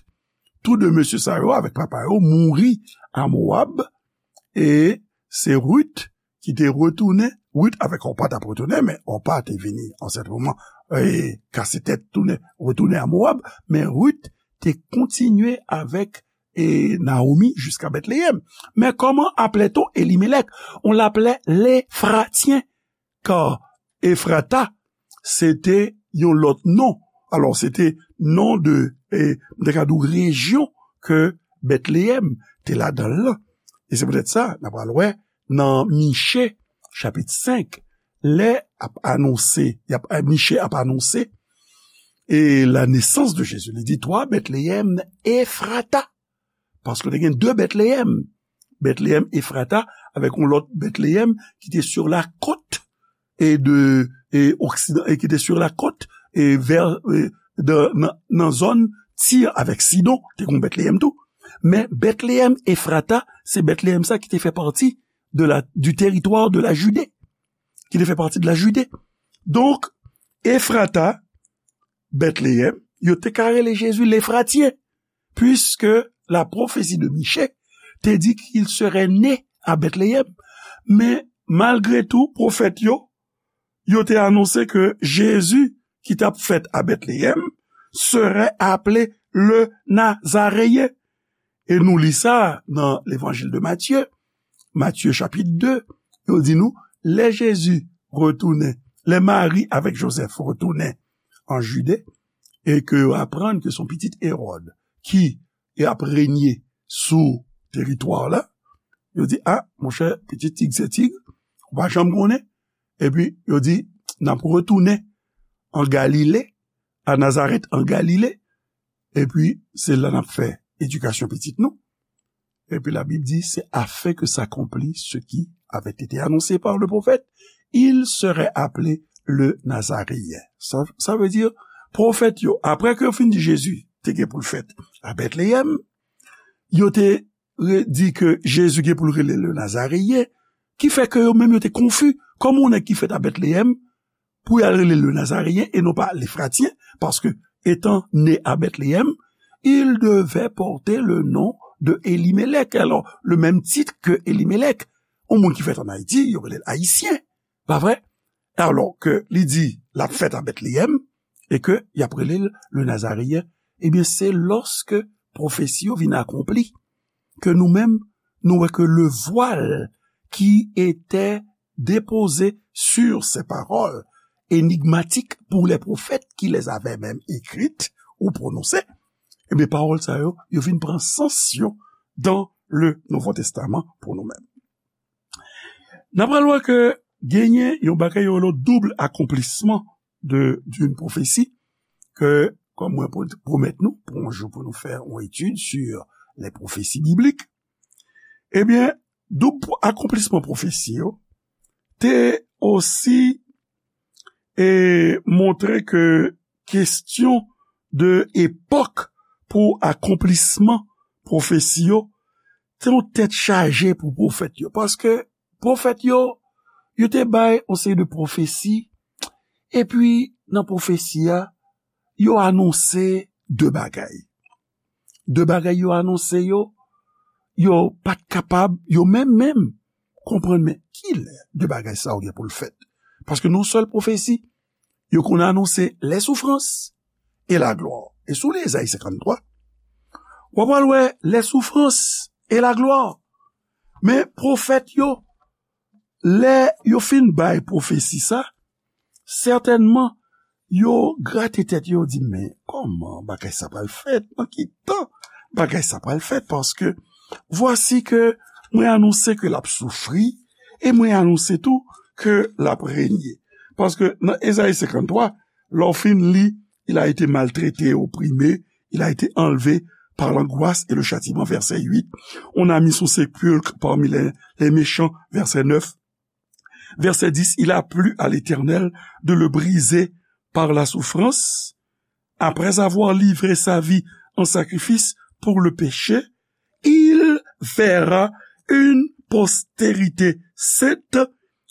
Tou de mesye sa yo avèk papa yo mouri a Mowab, e se Rit ki te retounen, Rit avèk Òpa t ap retounen, men Òpa te vini ansent moman, e kase tèt tounen, retounen a Mowab, men Rit te kontinye avèk e Naomi jiska Bètleyèm. Men comment appelait-on Elimelec? On l'appelait l'Éphratien, car Ephrata, se te yon lòt non. Alò, se te non de, e, m te ka di w rejyon ke Bètleyèm te ladan l lan. E se poutèt sa, n a pral wè nan Miche, chapit senk, lè ap anonse, y ap, Miche ap anonse, e la nesans de Jezi. Li di, Toi, Bethléem Ephrata. Paske te gen de Bètleyèm. Bètleyèm Ephrata, avèk yon lòt Bètleyèm ki te sur la côte e de, e oksidan, e ki te sur la côte, e vè, e de, nan, nan zòn Tir avèk Sidon, te gen Bètleyèm tou. Men Bètleyèm Ephrata, se Bètleyèm sa ki te fè pati de la, du territoire de la Judée, ki te fè pati de la Judée. Donk, Ephrata, Bètleyèm, yo te ka rele Jezi Lefratyen, puisque la prophétie de Michée te di qu'il serait né à Bethléem. Men, malgre tou, pwofèt yo, yo te anonse ke Jezi ki t ap fèt a Bètleyèm serait appelé le Nazaréen. E nou li sa nan Levanjil de Matye, Matye chapit de, yo di nou, lè Jezi retounen, lè Mari avèk Jozèf retounen an Jide, e ke yo aprann ke se yon pitit Ewòd ki ap renye sou teritwa la, yo di, a, monchè, pitit tig se tig, ou pa janm konnen. Epi, yo di, n ap retounen an Galile, a Nazarèt an Galile, epi se la n ap fè edikasyon pitit nou. Epi Labib di, c'est afin que s'accomplisse ce qui avait été annoncé par le prophète, il serait appelé le Nazaréen. Sa, sa vle di, pwofèt yo, apre ke yo fin di Jezi te gen pou l fèt a Bètleyèm, yo te re-, di ke Jezi gen pou l rele le Nazaréen, ki fè ke yo menm yo te konfi, kòman yon nèg ki fèt a Bètleyèm, pou y al rele le Nazaréen e non pa Lefratyen, paske, étant né à Bethléem, il devait porter le nom de Elimelec. Alors, le même titre que Elimelec. Yon moun ki fèt an Ayiti, yo rele l Ayisyen, pa vre? Alò ke li di, l ap fèt a Bètleyèm, e ke y ap rele l le Nazaréen, ebyen, se lòske pwofesi yo vin akonpli, ke nou menm, nou wè ke le voile qui était déposé sur ces paroles énigmatiques pour les prophètes qui les avaient même écrites ou prononcées, ebyen, pawòl sa yo, yo vin pran sans yo dans le Nouveau Testament pou nou menm. N ap pral wè ke genyen yon bagay yo rele double accomplissement de, d'une prophétie, ke, kòm mwen pwo-, pwomèt nou, pou yon jou pou nou fè yon etid sur les prophéties bibliques, ebyen, doub akonplisman pwofesi yo te osi, e, montre ke kesyon de epòk pou akonplisman pwofesi yo te yon tèt chaje pou pwofèt yo. Paske pwofèt yo, yo te bay yon seri de pwofesi, epi nan pwofesi a, yo anonse de bagay. De bagay yo anonse yo, yo pa t kapab, yo menm menm, konprann, men kilè de bagay sa yo gen pou l fèt. Paske nan yon sèl pwofesi, yo konn anonse les souffrances et la gloire. E si w li Ezayi senkanntwa, w ap pral wè les souffrances et la gloire. Men pwofèt yo, lè yo fin bay pwofesi sa, sètènman, yo grate tèt yo, yo di, men kòman bagay sa pral fèt? Nan ki tan bagay sa pral fèt? Paske, vwasi ke mwen anonse ke l ap soufri, e mwen anonse tou ke l ap renye. Paske nan Ezayi senkanntwa, lè w fin li, il a été maltraité, opprimé, il a été enlevé par l'angoisse et le châtiment, verset huit. On a mis son sépulcre parmi les, les méchants, verset neuf. Verset dix, il a plu à l'Éternel de le briser par la souffrance. Après avoir livré sa vie en sacrifice pour le péché, il verra une postérité sainte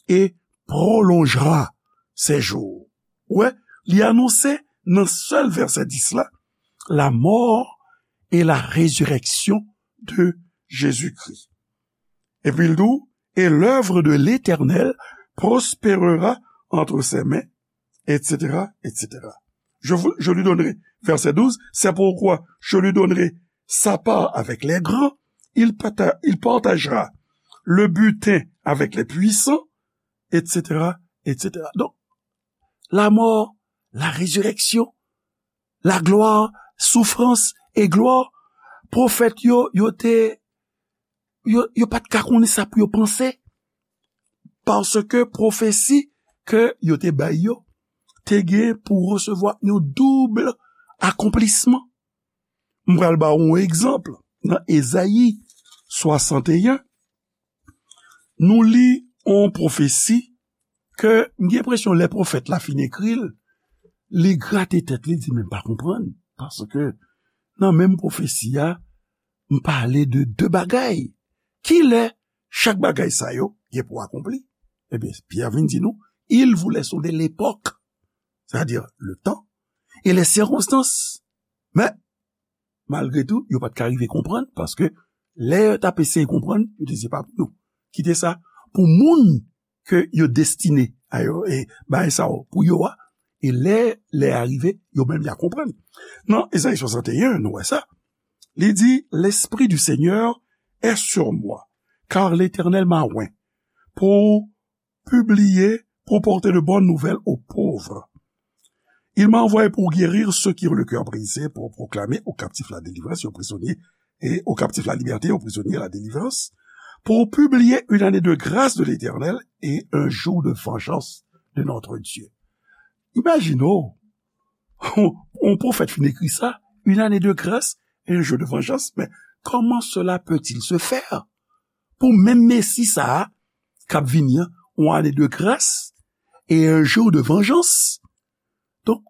et prolongera ses jours. Wè, li anonse nan sèl vèsè dis la, la mort et la résurrection de Jésus-Christ. Epi l di w, et l'œuvre de l'Éternel prospérera entre ses mains, et cetera, et cetera. Je, vous- je lui donnerai, verset douze, c'est pourquoi je lui donnerai sa part avec les grands, il, parta- il partagera le butin avec les puissants, et cetera, et cetera. Donk, la mort, la résurrection, la gloire, souffrance et gloire, pwofèt yo, yo te, yo, yo pa t ka konnen sa pou yo panse, paske pwofesi ke yo te bay yo, te gen pou resevwa yon doub akonplisman. M pral ba w yon egzanp. Nan Ezayi swasanteyen, nou li yon pwofesi ke m gen enpresyon lè pwofèt la fin ekri l, li grate tèt li, li di, "Men m pa konprann." Paske nan menm pwofesi a, m pale de de bagay. Kilè chak bagay sa yo gen pou akonpli? Ebyen, Pyè vin di nou, il voulait sonder l'époque, c'est-à-dire le temps, et les circonstances. Men, malgre tou, yo pa t ka rive konprann, paske lè yo t ap eseye konprann, yo te di, "Se pa pou nou." Kite sa pou moun ke yo destine a yo, e bagay sa yo pou yo a, e lè, lè a rive, yo menm y a konprann. Nan Ezayi swasanteyen, nou wè sa. Li di, "L'Esprit du Seigneur est sur moi, car l'Éternel m'a oint pour publier, pour porter de bonnes nouvelles aux pauvres. Il m'a envoyé pour guérir ceux qui ont le cœur brisé, pour proclamer aux captifs la délivrance et aux prisonniers, et aux captifs la liberté, aux prisonniers la délivrance, pour publier une année de grâce de l'Éternel et un jour de vengeance de notre Dieu." Imajine w, yon pwofèt fin ekri sa, une année de grâce et un jour de vengeance, mais comment cela peut-il se faire? Pou menm Mesi sa a, k ap vini an, yon ane de gras e un jour de vengeance. Donk,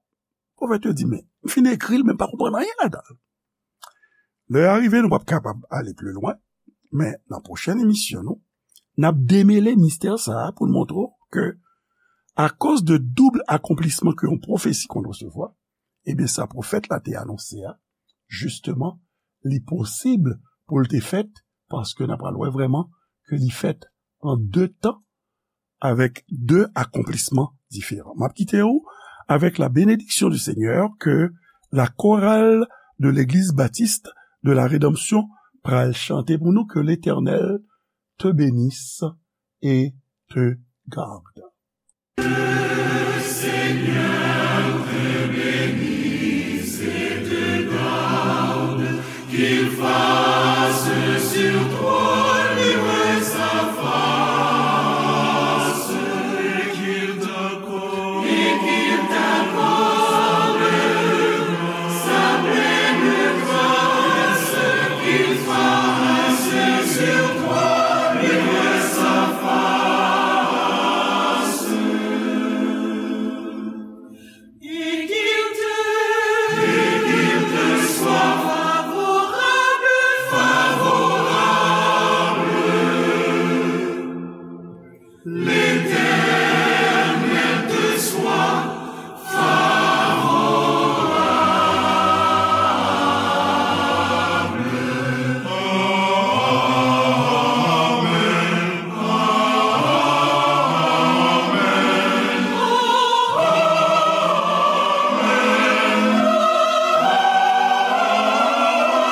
pwofèt yo di, "Men, m fin ekri l, men m pa konprann anyen ladan l." Lè a rive, nou p ap kapab ale pli lwen, men nan pwochèn emisyon nou, n ap demele mistè sa a pou n montre w ke, akoz de doub akonplisman ke yon pwofesi konn resevwa, ebyen, sa pwofèt la te anonse a, jisteman, li posib pou l te fèt, paske n ap pral wè vrèman ke li fèt an de tan, avèk de akonplisman diferan. M ap kite w avèk la bénédiction du Seigneur ke la chorale de l'Église Baptiste de la Rédemption pral chante pou nou, que l'Éternel te bénisse et te garde.